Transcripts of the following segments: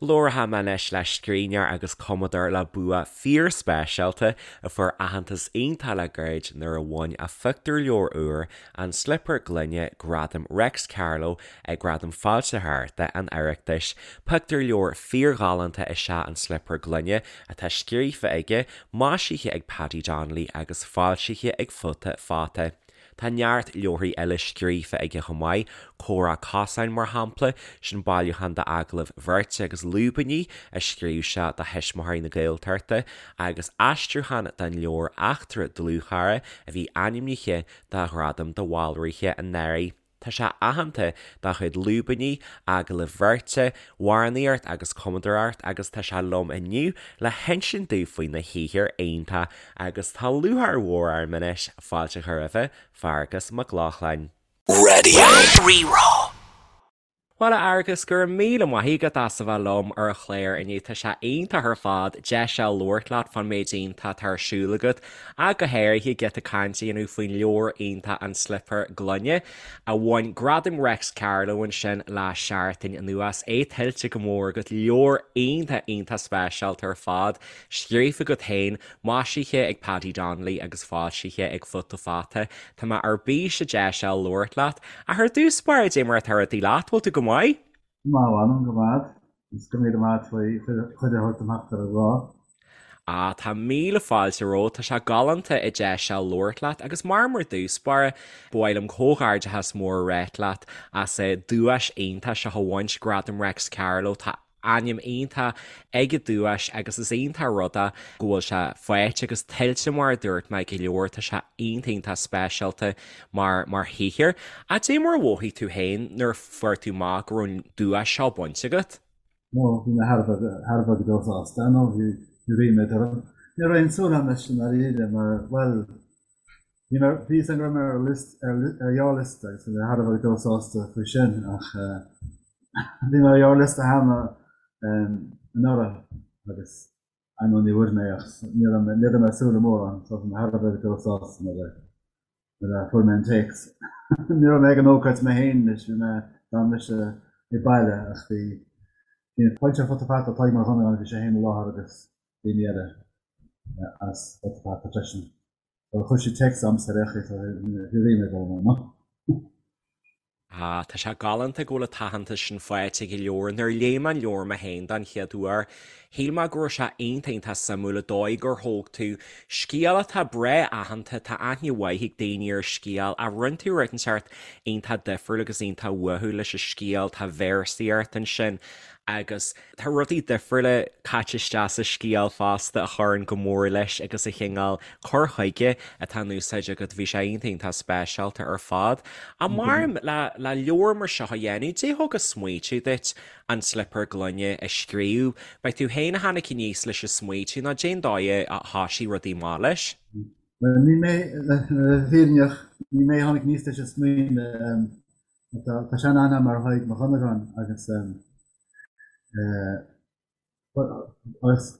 Labharfaidh mé anois le scríbhneoir agus cumadóir le bua fíorspeisialta a fuair aitheantas iontach le gairid nuair a bhain a phictiúrleabhar úr, An Slipéar Gloine, Gradam Reics Carló ag Gradaim Foilsitheoireachta an Oireachtais. Pictiúrleabhar fíorghalánta is ea An Slipéar Gloine atá scríofa aige, maisithe ag Paddy Donnelly agus foilsithe ag Futa Fata. Tá neart leabharthaí eile scríofa aige chomh maith, Comhrá Cosáin mar shampla, sin bailiúchán d'agallaimh bheirte agus lúibíní a scríobh sé do thuismitheoirí na Gaeltachta, agus aistriúchán den leabhar Eachtra Dlúthchara a bhí ainmnithe do Ghradam do Bhaldraithe anuraidh. Tá sé aitheanta dá chuid lúibíní, agallaimh bheirte, amhránaíocht agus cumadóireacht agus tá sé liom inniu le hinsint domh faoina shaothar iontach agus tá lúcháir mhór orm anois fáilte a chur roimhe, Fearghas Mac Lochlainn. Raidió Rí-Rá. Bhuel a Fhearghais, go raibh míle maith agat as a bheith liom ar an chlár inniu. Tá sé iontach ar fad deis a labhairt leat fán méid iontach atá ar siúl agat ach go háirithe giota cainte a dhéanamh faoin leabhar iontach An Slipéar Gloine a bhain Gradam Reics Carló ansin le seachtain anuas. É tuillte go mór agat, leabhar iontach iontach speisialta ar fad, scríofa agat féin, maisithe ag Paddy Donnelly agus foilsithe ag Futa Fata. Tá mé ar bís an deis a labhairt leat. Ach ar dtús báire, dé mar atá rudaí leat, bhfuil tú go maith? Go maith, a mh'anam, go maith. Is go míle maith faoi chuireadh a thabhairt dom theacht ar an gclár. Ah, tá míle fáilte romhat, tá sé galánta an deis a labhairt leat agus mar mar dtús báire, ba mhaith liom comhghairdeachas mór a ráit leat as an duais iontach seo a bhaint, Gradam Reics Carló. Tá ainm iontach ag an duais agus is iontach an rud é go bhfuil sé faighte agus tuillte mar a dúirt mé ag an leabhar, tá sé iontach iontach speisialta mar mar shaothar. Ach dé mar a mhothaigh tú féin nuair a fuair tú amach go raibh an duais seo bainte agat? Ó, bhí mé thar a bheith thar a bheith go deo sásta, nó bhí bhí ríméad orm. Ní raibh aon súil agam leis i ndáiríre mar, bhuel, bhí mé, bhí fhios agam go raibh mé ar list, ar ar ghearrliosta agus bhí mé thar a bheith go deo sásta faoi sin ach eh, Bhí mé ar ghearrliosta cheana anuraidh agus ar ndóigh ní bhfuair mé ach ní raibh mé ní raibh mé ag súil le mórán so bhí mé thar a bheith go deo sásta nuair a nuair a fuair mé an téacs. Ní raibh mé ag an ócáid mé féin anois, bhí mé d'fhan mise ag baile ach bhí bhí an foilsitheoir Futa Fata Tadhg Mac Dhonnagáin bhí sé féin i láthair agus daoine eile as Futa Fata freisin. So chuir siad téacs a'msa ar aon chaoi so bhí ríméad orm ar ndóigh. Ah, tá sé galánta go bhfuil an t-aitheantas sin faighte ag an leabhar. Nuair a léigh mé an leabhar mé féin don chéad uair, shíl mé go raibh sé iontach iontach suimiúil an dóigh gur thóg tú scéal atá breá aitheanta, tá aithne mhaith ag daoine ar an scéal, ach rinne tú rud inteacht iontach difriúil agus iontach uathúil leis an scéal, tá véarsaíocht ansin agus Tá rudaí difriúla caite isteach sa scéal fosta a chuireann go mór leis agus an cineál cur chuige atá in úsáid agat, bhí sé iontach iontach speisialta ar fad. Ach maram le le leabhar mar seo a dhéanamh, dé thug an smaoitiú duit An Slipéar Gloine a scríobh? B'é tú féin a tháinig aníos leis an smaoitiú nó dén dóigh a thoisigh rudaí amach leis? Bhuel, ní mé, le bheith fírinneach, ní mé a tháinig aníos leis an smaoineamh. Tá sean-aithne agam ar Thadhg Mac Dhonnagáin agus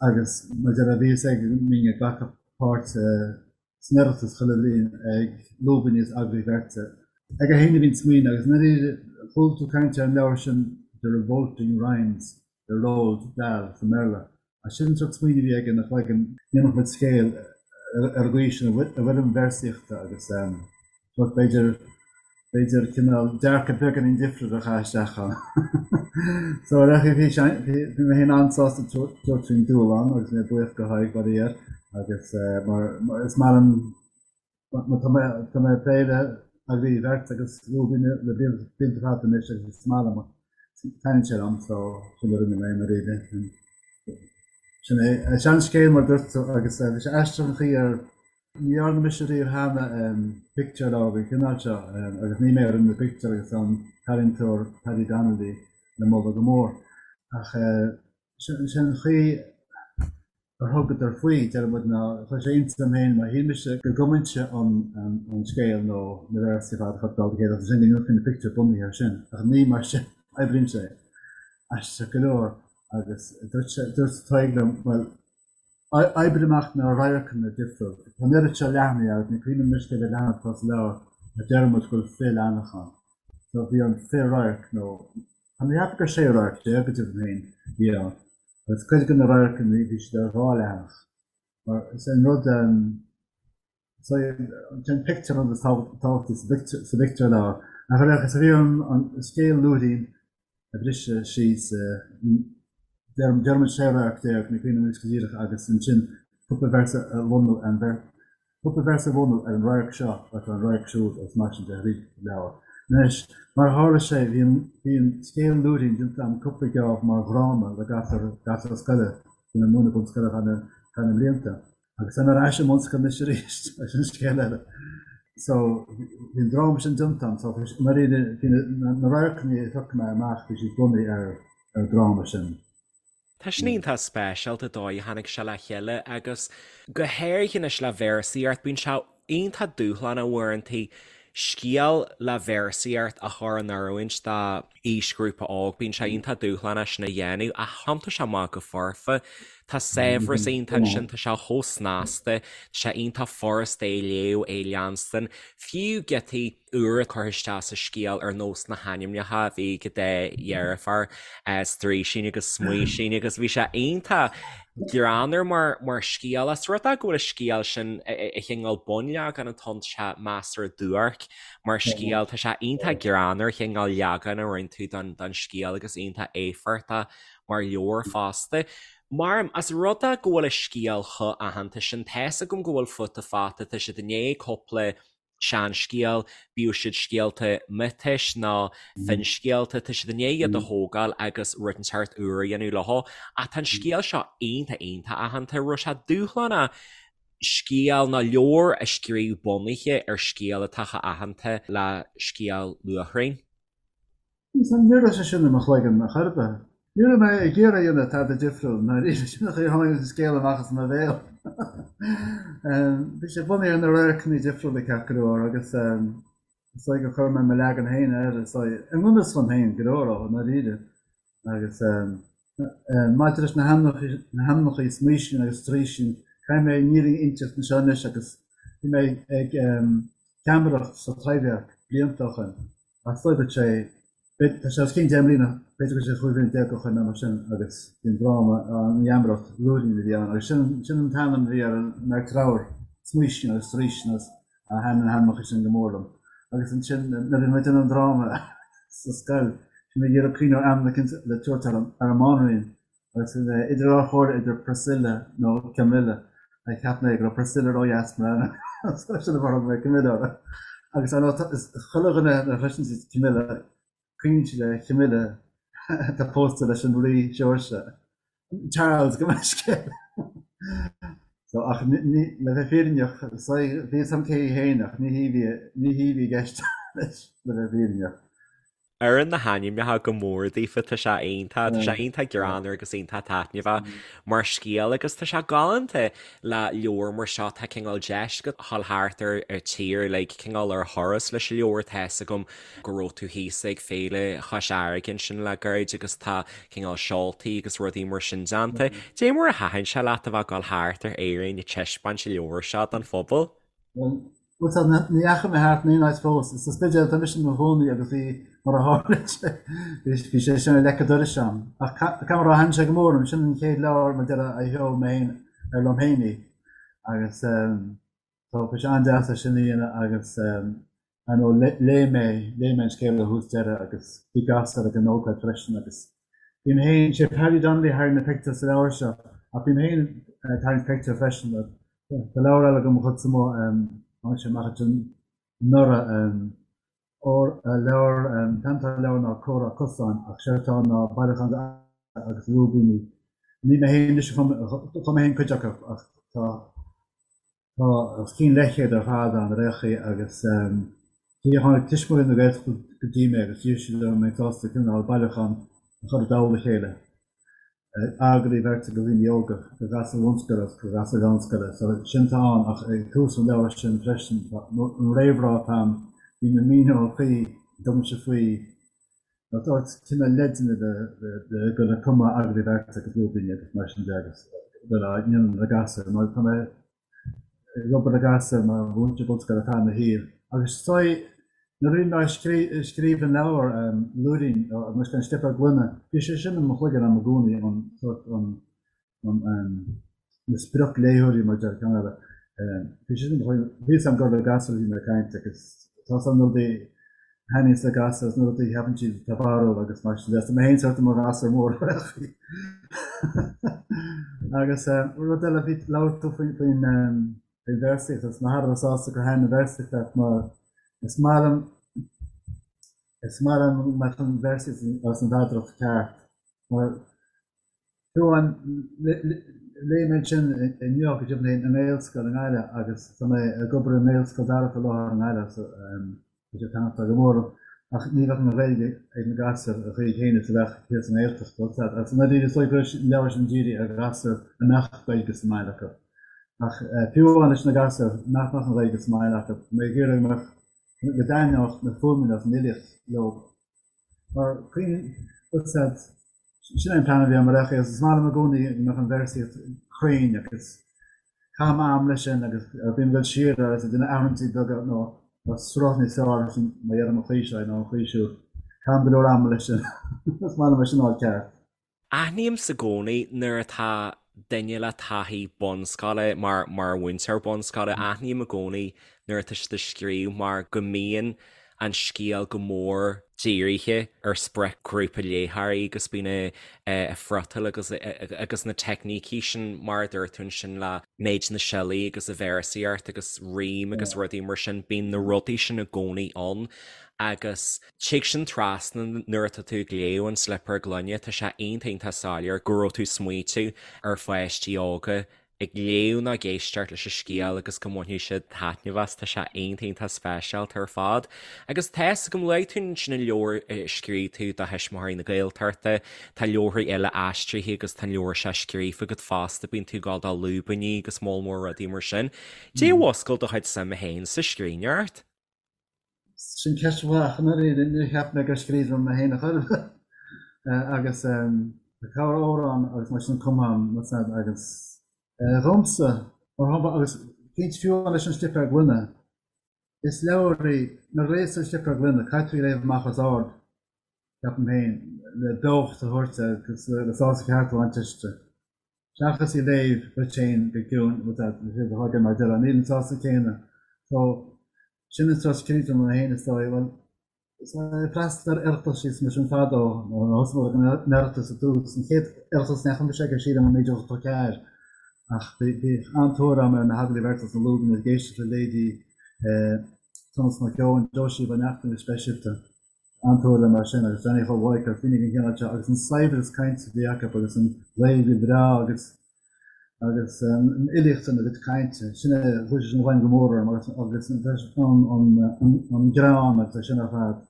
agus mar a déarfá bhí fhios aige go mbínn ag glacadh páirt san Oireachtas chuile bhliain ag lúibíní is agallaimh bheirte. Aige féin a bhí an smaoineamh agus i ndáiríre chuala tú caint ar an leabhar sin The Revolting Rhymes le Roald Dahl sa mBéarla. Ach sin an sórt smaoineamh a bhí aige ina chloigeann, ndéanfadh muid scéal ar an gcaoi sin i bhfoirm véarsaíochta agus sórt b'fhéidir, b'fhéidir cineál dearcadh beagáinín difriúil a chaitheamh isteach ann. So ar aon chaoi bhí sé, bhí mé féin an-sásta tabhairt faoin dúshlán agus mé buíoch do Thadhg faraor agus mar is maith liom Tá mé tá mé ag plé le agallaimh bheirte agus lúibíní le blianta fada anois agus is maith liom taitníonn sé liom so sin a rinne mé i ndáiríre. Sin é. Seanscéal mar a dúirt tú agus bhí sé aisteach an chaoi ar ní dhearna mise riamh cheana pictiúrleabhar den chineál seo agus ní mé a rinne na pictiúir agus tá an t-ealaíontóir Paddy Donnelly le moladh go mór ach sin an chaoi ar thugadar faoi, deir muid, ná chuir sé iontas orm féin mar shíl mise go gcumfainnse an scéal nó na véarsaí ar fad a chur i dtoll a chéile agus ansin go ndéanfaí na pictiúir bunaithe air sin. Ach ní mar sin a oibríonn sé. Aisteach go leor. Agus dúirt sé, dúirt Tadhg liom, bhuel, oibrigh amach na radharcanna difriúil. Tá an oiread seo leathanaigh agus ní cuimhin liom anois cé mhéad leathanach atá sa leabhar ach deir muid go bhfuil 20 leathanach ann. So bhí an 20 radharc nó. Tá mé ag ceapadh gur 16 radharc go deimhin féin a bhí ann agus cuid de na radharcanna bhí siad ar dhá leathanach mar is é an rud is é an pictiúr an rud is tábhachtaí sa phictiúrleabhar. Ach ar aon chaoi bhí orm an scéal Lúirín a bhriseadh síos déarfaimid 16 radharc, ní cuimhin liom anois go díreach agus ansin cúpla véarsa a bhunú ar an cúpla véarsa a bhunú ar an radharc seo agus ar an radharc siúd agus mar sin de thríd an leabhar. Anois, mar a tharla sé, bhí an bhí an scéal Lúirín déanta agam cúpla geábh mar dhráma le gasúir gasúir scoile, bhí mé ag múineadh bunscoile ar feadh na feadh na mblianta. Agus táim ar ais i mbunscoil anois arís, sin scéal eile. So, bhí an dráma sin déanta agam, so i ndáiríre bhí na na radharcanna a phioc mé amach, bhí siad bunaithe ar ar an dráma sin. Tá sin iontach speisialta an dóigh a tháinig sé le chéile agus go háirithe anois le véarsaíocht, bíonn sé iontach dúshlánach uaireanta scéal le véarsaíocht a chur in oiriúint do aoisghrúpa óg, bíonn sé iontach dúshlánach sin a dhéanamh ach thiontaigh sé amach go foirfe. Tá saibhreas iontach ansin, tá sé chomh snasta, tá sé iontach furasta é a léamh, é a leanstan, fiú giotaí úra curtha isteach sa scéal ar nós na hainmneacha a bhí ag an dá dheirfiúr, Straoisín agus Smaoisín agus bhí sé iontach greannmhar mar mar scéal. As rud é go bhfuil an scéal sin a chineál bunleagan atá ann, tá sé measartha duairc mar scéal, tá sé iontach greannmhar an chineál leagan a rinne tú don don scéal agus iontach éifeachtach mar leabhar fosta. Mar, as rud é go bhfuil an scéal chomh aitheanta sin, tá's agam go bhfuil Futa Fata, tá siad i ndiaidh cúpla seanscéal, bíodh siad scéalta miotais nó finscéalta, tá siad i ndiaidh iad a thógáil agus rud inteacht úr a dhéanamh leo. Ach tá an scéal seo iontach iontach aitheanta, raibh sé dúshlánach scéal nó leabhar a scríobh bunaithe ar scéal atá chomh aitheanta le scéal Luachraín. Ní raibh sé sin i mo chloigeann ar chor ar bith. Ní raibh mé ag iarraidh a dhéanamh tada difriúil, ndáiríre, sin an chaoi a tháinig an scéal amach as mo bhéal. Bhí sé bunaithe ar na radharcanna difriúla ceart go leor agus is dóigh gur chuir mé mo leagan féin air, is dóigh, i ngan fhios dom féin go leor, i ndáiríre. Agus maidir leis na hainmneacha Smaoisín agus Straoisín, caithfidh mé an fhírinne a inseacht anseo anois agus bhí mé ag geamaireacht sa Taibhdhearc blianta ó shin. Ach is dóigh go sé, tá sé os cionn 10 mbliana, b'fhéidir go raibh sé 15 bliain ó shin nó mar sin agus bhí an dráma, an gheamaireacht, Lúirín a bhí ann agus sin, sin an t-ainm a bhí ar an mbeirt ramhar, Smaoisín agus Straoisín agus thaitin na hainmneacha sin go mór liom. Agus ansin nuair a bhí muid ag déanamh an dráma sa scoil, bhí mé ag iarraidh cuimhneamh ar ainm eicínt le tabhairt ar an, ar an mbanríon Agus bhí mé idir dhá chomhairle idir Priscilla nó Camilla. Cheap mé go raibh Priscilla ródheas mar ainm, so sin an fáth ar thug mé Camilla uirthi. Agus ar ndóigh, is chuile dhuine nuair a chloiseann siad Camilla, cuimhníonn siad ar Camilla atá pósta leis an Rí Seoirse, Charles gabh mo leithscéal. So, ach ní, le bheith fírinneach, bhí a fhios agam cé hí féin ach ní hí a bhí, ní hí a bhí i gceist leis, le bheith fírinneach. Oireann na hainmneacha go mór daofa, tá sé iontach, tá sé iontach greannmhar agus iontach taitneamhach mar scéal agus tá sé galánta le leabhar mar seo, tá cineál deis agat a dhul thart ar an tír like cineál ar thuras leis an leabhar, tá fhios agam go raibh tú thíos ag Féile Chois Fharraige ansin le gairid agus tá cineál seoltaí agus rudaí mar sin déanta. Dé mar a thaitin sé leat a bheith ag dul thart ar Éirinn ag taispeáint an leabhair seo don phobal? Bhuel, ní dheachaigh mé thart in aon áit fós. Sa Spidéal atá mise i mo chónaí agus bhí, mar a tharla sé, bhí sé sin ar leic an dorais agam. Ach caithfidh mé a rá, thaitin sé go mór liom. Sin an chéad leabhar, mar a déarfá, a sheol mé féin, ar liom féin í. Agus so bhí sé an-deas é sin a dhéanamh agus ar ndóigh léigh mé, léigh mé an scéal ó thús deireadh agus bhí gasúir ag an ócáid freisin agus bím féin, sé Paddy Donnelly a tharraing na pictiúir sa leabhar seo ach bím féin ag tarraingt pictiúr freisin. Tá leabhar eile agam mo chuidse amuigh, tháinig sé amach ansin anuraidh, leabhar, an t-ainm atá ar an leabhar ná Comhrá Cosáin ach séard atá ann ná bailiúchán de agus lúibíní. Ní mé féin anois a chum, chum mé féin cuid acu ach tá Tá os cionn leathchéad ar fad ann ar aon chaoi agus tháinig Tuismitheoirí na Gaeltachta go dtí mé agus d'iarr siad orm an mbeinn sásta cineál bailiúchán a chur i dtoll a chéile, agallaimh bheirte do dhaoine óga, do ghasúir bhunscoile agus do ghasúir mheánscoile. So sin atá ann ach ag tús an leabhair sin freisin, tá an réamhrá atá ann, bím ag míniú an chaoi a dtugaimse faoi nó tabhairt cineál leideanna le dul ag cumadh agallaimh bheirte agus lúibíní agus mar sin de agus dul á ndéanamh le gasúir mar tá mé ag obair le gasúir mar mhúinteoir bunscoile ar feadh mo shaoil agus is dóigh. Nuair a bhí mé ag scríobh an leabhair Lúirín, agus an Slipéar Gloine, bhí sé sin i mo chloigeann agam i gcónaí, an sórt, an, na spriocléitheoirí mar a deir ceann eile. Bhí sé sin i mo chloigeann, bhí a fhios agam gur le gasúir a bhí mé ag caint agus tá a fhios agam na rudaí a thaitníonns le gasúir agus na rudaí a cheapann siad atá barrúil agus mar sin de. Tá mé féin sórt i mo ghasúr mór ar chaoi. Agus rud eile, bhí, labhair tú faoin, faoin, Faoin véarsaíocht, agus mé thar a bheith sásta gur thaitin an véarsaíocht leat mar is maith liom, is maith liom go mbeadh an véarsaíocht agus an mheadaracht ceart mar fiú amháin léigh mé ansin inniu go deimhin i nGaelscoil i nGaillimh agus tá mé ag obair i nGaelscoil Dara faoi láthair i nGaillimh so Tá sé ag taitneamh go mór liom, ach ní bheadh an Ghaeilge ag na gasúir an chaoi chéanna is a bheadh thíos sa nGaeltacht. Agus i ndáiríre is dóigh go raibh an leabhar sin dírithe ar ghasúir a mbeadh Gaeilge sa mbaile acu. Ach fiú amháin leis na gasúir nach mbeadh an Ghaeilge sa mbaile acu, tá mé ag iarraidh go mbeadh, go dtaitneodh na fuaimeanna agus an fhilíocht leo. Mar sin é an plean a bhí agam ar aon chaoi agus is maith liom i gcónaí go mbeadh an véarsaíocht cruinn agus caithim am leis sin agus bím ag dul siar air agus ag déanamh athruithe beaga nó sruth níos fearr leis an má dheirim an chaoi seo nó an chaoi siúd. Caithim go leor ama leis sin. Is maith liom é sin a fháil ceart. Aithnímse i gcónaí nuair atá duine le taithí bunscoile mar mar mhúinteoir bunscoile, aithním i gcónaí nuair atá siad ag scríobh mar go mbíonn an scéal go mór dírithe ar spriocghrúpa léitheoirí agus bíonn a friotal agus agus na teicnící sin mar a dúirt tú ansin le méid na siollaí agus a véarsaíocht agus rím agus rudaí mar sin, bíonn na rudaí sin i gcónaí ann agus Tig sin trasna nuair atá tú ag léamh An Slipéar Gloine, tá sé iontach iontach soiléir go raibh tú ag smaoitiú ar pháistí óga ag léamh nó ag éisteacht leis an scéal agus go mbainfidh siad taitneamh as, tá sé iontach iontach speisialta ar fad. Agus tá fhios agam, luaigh tú ansin an leabhar a scríobh tú do Thuismitheoirí na Gaeltachta, tá leabharthaí eile aistrithe agus tá an leabhar seo scríofa agat fosta, bíonn tú ag gabháil do lúibíní agus moll mór rudaí mar sin. Dé a mhúscail do chuid suime féin sa scríbhneoireacht? Sin ceist mhaith, ach i ndáiríre níor cheap mé gur scríbhneoir mé féin a chor ar bith. Agus tá corr-amhrán agus mar sin cumtha agam agus dhomsa, mar shampla, agus cinnte fiú amháin leis an Slipéar Gloine, is leabhar í, nuair a léas tú an Slipéar Gloine, caithfidh tú í a léamh amach os ard, ceapaim féin, le beocht a thabhairt agus le sásamh ceart a bhaint aisti. Seachas í a léamh duit féin go ciúin, bhfuil a fhios agat mar a déarfá, níl an sásamh céanna. So, sin an sórt scríbhneoir mé féin is dóigh. Bhuel, is ag freastal ar Oireachtais is mar sin fadó, nuair a thosaigh mé ag an Oireachtas i dtús, an chéad Oireachtas a ndeachaigh mise aige sílim i 1984, ach bhí an-tóir agam ar na hagallaimh bheirte agus na lúibíní ag éisteacht le leithéidí Tomás Mac Eoin, Josie Ó Neachtain go speisialta. An-tóir le mar sin agus Johnny Chóil Mhaidhc agus daoine den chineál seo agus an saibhreas cainte a bhí acu agus an Ghaeilge bhreá agus agus an fhilíocht ina gcuid cainte, sin é, chuaigh sé sin i bhfeidhm go mór orm agus agus an an an greann agus é sin ar fad.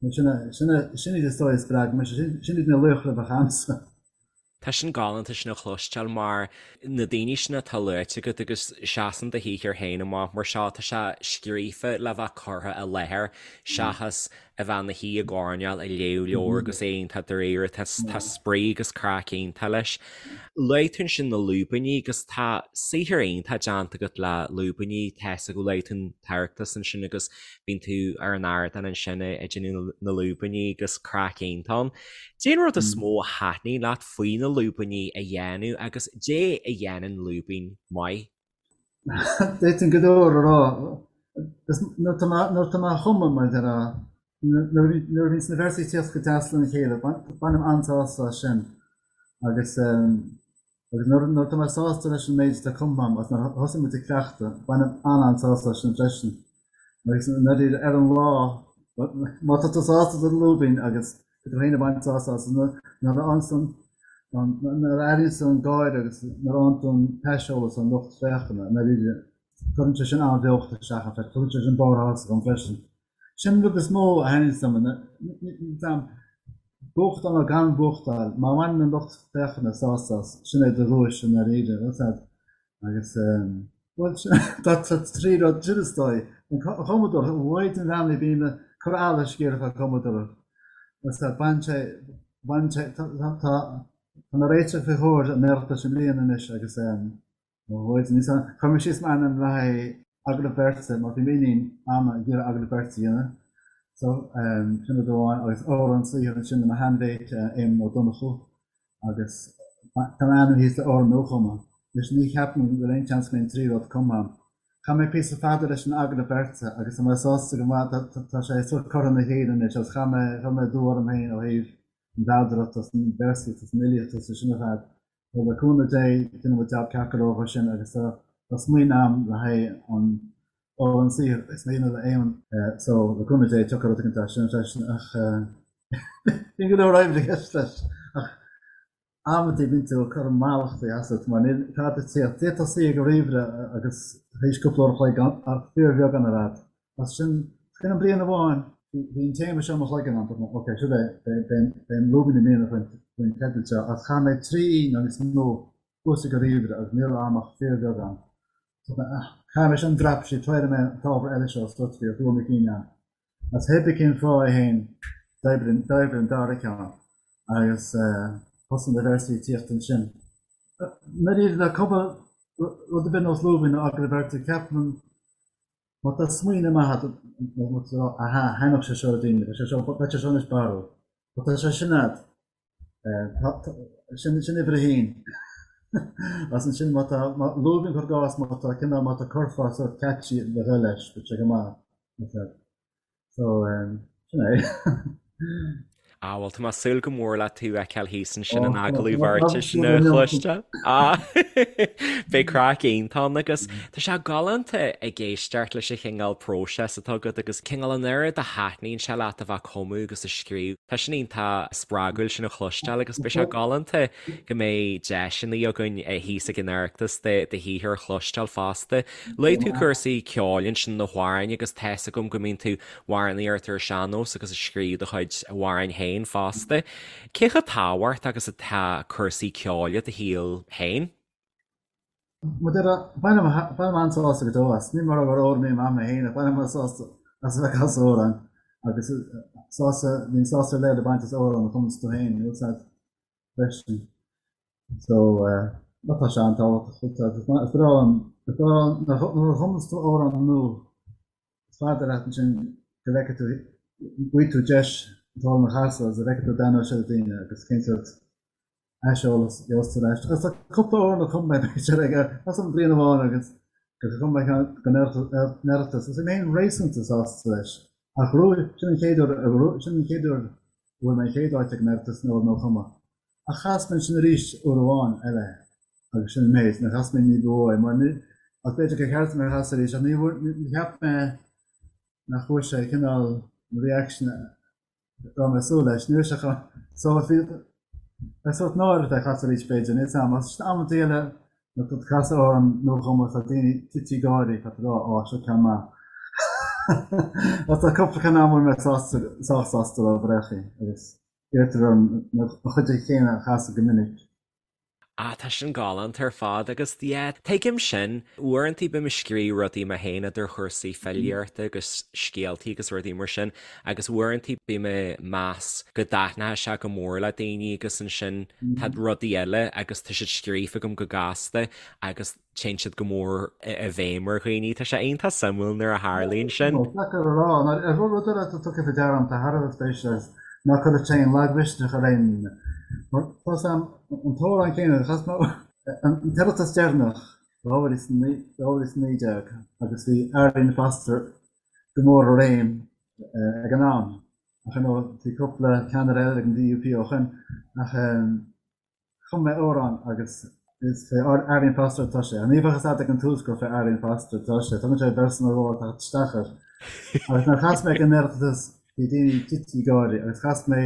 Sin é sin é sin iad is dóigh a spreag mise, sin iad na laochra a bheadh a'msa. Tá sin galánta sin a chloisteáil mar na daoine sin atá luaite agat agus seasann do shaothar féin amach mar seo, tá sé scríofa le bheith curtha i láthair seachas a bheith ina shuí i gcoirnéal ag léamh leabhar agus é iontach dáiríre, tá spraoi agus craic iontach leis. Luaigh tú ansin na lúibíní agus tá saothar iontach déanta agat le lúibíní, tá fhios agam, luaigh tú an tOireachtas ansin agus bíonn tú ar an ardán ansin ag déanamh na lúibíní agus craic iontach ann. Dé an rud is mó a thaitníonn leat faoi na lúibíní a dhéanamh agus dé a dhéanann lúibín maith? D'fhéadfainn go leor a rá. Nuair atá mé á chumadh, mar a déarfá, nuair a bhíonns na véarsaí ag tíocht go deas lena chéile, bainim an-sásamh as sin. Agus Agus nuair atá mé sásta leis an méid atá cumtha agam agus nuair a thosaíonn muid ag cleachtadh, bainim an-an-sásamh as sin freisin. Agus ndáiríre, ar an lá, má tá tú sásta le do lúibín agus tá tú féin ag baint sásamh as, nuair a fhaigheann tú an, nuair a airíonn tú an gáire agus nuair a fhaigheann tú an t-aiseolas ón lucht féachana, ndáiríre, cuireann sé sin an-bheocht isteach ann freisin, tugann sé sin barr sásaimh dom freisin. Sin an rud is mó a thaitníonns liom, buachtáil nó gan buachtáil, má bhaineann an lucht féachana sásamh as, sin é do dhuais i ndáiríre, bhfuil fhios a'd. Agus, bhuel, tá trí rud, sin is dóigh. An chumadóireacht, Mhaighdean Bheannaithe bím ag cur allais ag iarraidh fá cumadóireacht. Bhfuil fhios a'd, baineann sé, baineann sé, tá, tá, tá mé réiteach faoi chomhair an Oireachtais i mbliana anois agus, Ó Mhaighdean, níl 's a'm, chuir mé síos m'ainm le haghaidh agallamh beirte mar bhí m'iníon Anna ag iarraidh agallamh beirte a dhéanamh. So, sin rud amháin agus amhrán saothair ansin le mo sheanmhéit Éamonn Ó Donnchú agus tá m'ainm thíos le amhrán nuachumtha. Anois ní cheapaim go bhfuil aon seans go mbeidh an triú rud cumtha agam. Chaith mé píosa fada leis an agallamh beirte agus tá mé sásta go maith, tá sé sórt curtha ina chéile anois agus chaith mé, chuir mé dua orm féin ó thaobh an mheadaracht agus an véarsaíocht agus an fhilíocht agus sin ar fad. So le cúnamh Dé déanfaidh muid jab ceart go leor dhó sin agus tá smaoineamh agam le haghaidh an amhrán saothair is mé le Éamonn. So le cúnamh Dé tiocfaidh rud éicint as sin freisin ach bíonn go leor oibre i gceist leis ach amantaí bíonn tú ag cur mallachtaí asat mar níl tada ag tíocht. D'fhéadfá suí ag an ríomhaire agus théis cúpla uair a chloig ach fíorbheagán ar fad. As sin, sin an bliain amháin, bhí an téama seo i mo chloigeann ann, dúirt mé, ok, seo é, beidh an lúibín i mbliana faoin teideal seo, ach chaith mé 3 oíche nó níos mó thuas ag an ríomhaire agus ní raibh agam ach fíorbheagán. Dúirt mé, ah, caithfidh mé sin a dreapadh síos, tabharfaidh mé an t-ábhar eile seo suas bhí dua mo chinn ann. As pé bith cén fáth é féin, d'oibrigh an dara ceann agus thosaigh na véarsaí ag tíocht ansin. Nuair le cumadh rud ar bith nós lúibín nó agallamh beirte, ceapaim, Má tá smaoineamh maith agat, nó tú ag rá, aha, thaitneodh sé seo le daoine, beidh sé seo, beidh sé seo anois barrúil. Má tá sé sin agat, sin, sin uimhir a haon. Agus ansin má tá, má, lúibín cuir i gcás, má tá cineál, má tá curfá sórt catchy le dhul leis, beidh sé go maith. So, sin é. Ah, bhuel, tá mé ag súil go mór le tú a fheiceáil thíos ansin in agallamh beirte sin a chloisteáil. Ah, beidh craic iontach ann agus tá sé galánta ag éisteacht leis an chineál próiseas atá agat agus cineál an oiread a thaitníonn sé leat a bheith ag cumadh agus ag scríobh. Tá sin iontach spreagúil sin a chloisteáil agus beidh sé galánta go mbeidh deiseanna againn thíos ag an Oireachtas do shaothar a chloisteáil fosta. Luaigh tú cúrsaí ceoil ansin na hamhráin agus tá's agam go mbíonn tú ag amhránaíocht ar an sean-nós agus ag scríobh do chuid amhráin féin fosta. Cé chomh tábhachtach agus atá cúrsaí ceoil i do shaol féin? Bainim bainim an-sásamh go deo as. Ní mar gur amhránaí maith mé féin ach bainim an-sásamh as a bheith ag casadh amhrán agus sásamh, bíonn sásamh ar leith le baint as amhrán a chumanns tú féin, níl 's a'd. freisin. So, má tá sé an-tábhachtach, is breá liom, is breá liom, nuair a chumanns tú amhrán nua, is fada leat ansin go bhfeicfidh tú, bhfaighidh tú deis an t-amhrán a chasadh agus go bhfeicfidh tú an dtaitneoidh sé le daoine agus cén sórt aiseolas a gheobhas tú ar ais. Agus tá cúpla amhrán a chum mé b'fhéidir ag, as an bhliain amháin agus gur chum mé ceann don Oireachtas agus bhí mé féin réasúnta sásta leis. Ach ghnóthaigh, sin an chéad uair, sin an chéad uair a bhfuair mé an chéad áit ag an Oireachtas in amhrán nuachumtha. Ach chas mé ansin arís uair amháin eile agus sin an méid, níor chas mé ní ba mhó é mar ní, ach b'fhéidir gur cheart dom é a chasadh arís ach ní bhfuair, ní cheap mé nach bhfuair sé cineál an reaction a raibh mé ag súil leis. Ní raibh sé chomh, so bhí, bheadh sórt náireach é a chasadh arís b'fhéidir, níl 's a'm, ach sin amantaí eile nuair atá tú ag casadh amhrán nuachumtha tá daoine tite ag gáirí, tá tú ag rá, á, seo ceann maith. Ach tá cúpla ceann ann a bhfuil mé sásta, sách sásta leo bréachaí agus iarrtar orm an chuid chéanna a chasadh go minic. Ah, tá sin galánta ar fad agus yeah, tuigim sin. Uaireanta bím ag scríobh rudaí mé féin idir chúrsaí filíochta agus scéaltaí agus rudaí mar sin agus uaireanta bím ag meas go dtaitneoidh sé go mór le daoine agus ansin tá rudaí eile agus tá siad scríofa agam go gasta agus téann siad go mór i bhfeidhm ar dhaoine. Tá sé iontach suimiúil nuair a tharlaíonn sin. Is deacair a rá. Ar rud eile atá tugtha faoi deara agam atá thar a bheith spéisiúil agus ná cuireann sé aon lagmhisneach ar aon duine. Mar tá 's a'm, an t-amhrán céanna, chas mé an tOireachtas deireanach, 2019, agus bhí Arlene Foster go mór i réim ag an am. Ach ar ndóigh, bhí cúpla ceannaire eile ag an DUP ó shin. Ach Chum mé amhrán agus is fé Arlene Foster atá sé. Ní bheadh fhios a'd ag an tús gur fé Arlene Foster atá sé. Tugann sé véarsa nó dhó ag teacht isteach air. Agus nuair a chas mé ag an Oireachtas bhí daoine tite ag gáirí agus chas mé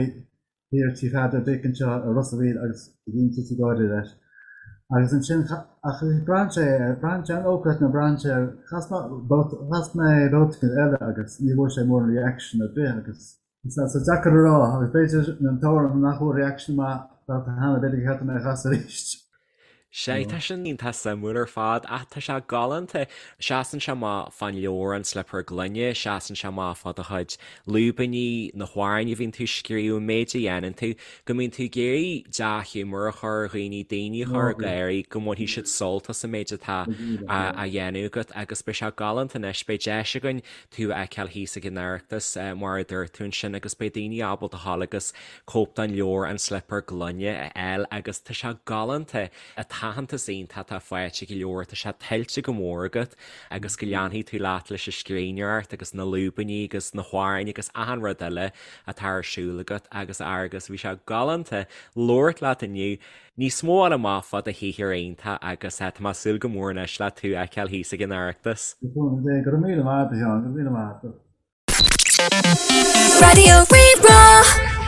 thiar Tí Pheadair Dick anseo i Ros a' Mhíl agus bhí daoine tite ag gáirí leis. Agus ansin ach braitheann sé ar, braitheann sé an ócáid nó braitheann sé ar, chas mé chas mé babhta eile agus ní bhfuair sé mórán reaction ar bith agus Tá sé deacair a rá, agus b'fhéidir an t-amhrán nach bhfuair reaction maith babhta cheana, b'fhéidir gur cheart dom é a chasadh arís. Sea, tá sin iontach suimiúil ar fad, ach tá sé galánta. Seasann sé amach fán leabhar An Slipéar Gloine, seasann sé amach fá do chuid lúibíní, na hamhráin a bhíonn tú ag scríobh, an méid a dhéanann tú, go mbíonn tú ag iarraidh dea-ghiúmar a chur ar dhaoine, daoine a chur ag gáirí, go mbainfidh siad sult as an méid atá á dhéanamh agat agus beidh sé galánta anois, beidh deis againn tú a fheiceáil thíos ag an Oireachtas mar a dúirt tú ansin agus beidh daoine ábalta a ghabháil agus cóip den leabhar An Slipéar Gloine a fháil agus tá sé galánta, an t-aitheantas iontach atá faighte ag an leabhar, tá sé tuillte go mór agat agus go leanfaidh tú leat leis an scríbhneoireacht agus na lúibíní agus na hamhráin agus achan rud eile atá ar siúl agat agus a Fhearghus, bhí sé galánta labhairt leat inniu. Níos mó a fháil amach fá do shaothar iontach agus tá mé ag súil go mór anois le tú a fheiceáil thíos ag an Oireachtas. Go raibh míle maith agat a Sheáin, go raibh míle maith agat. Raidió Rí-Rá.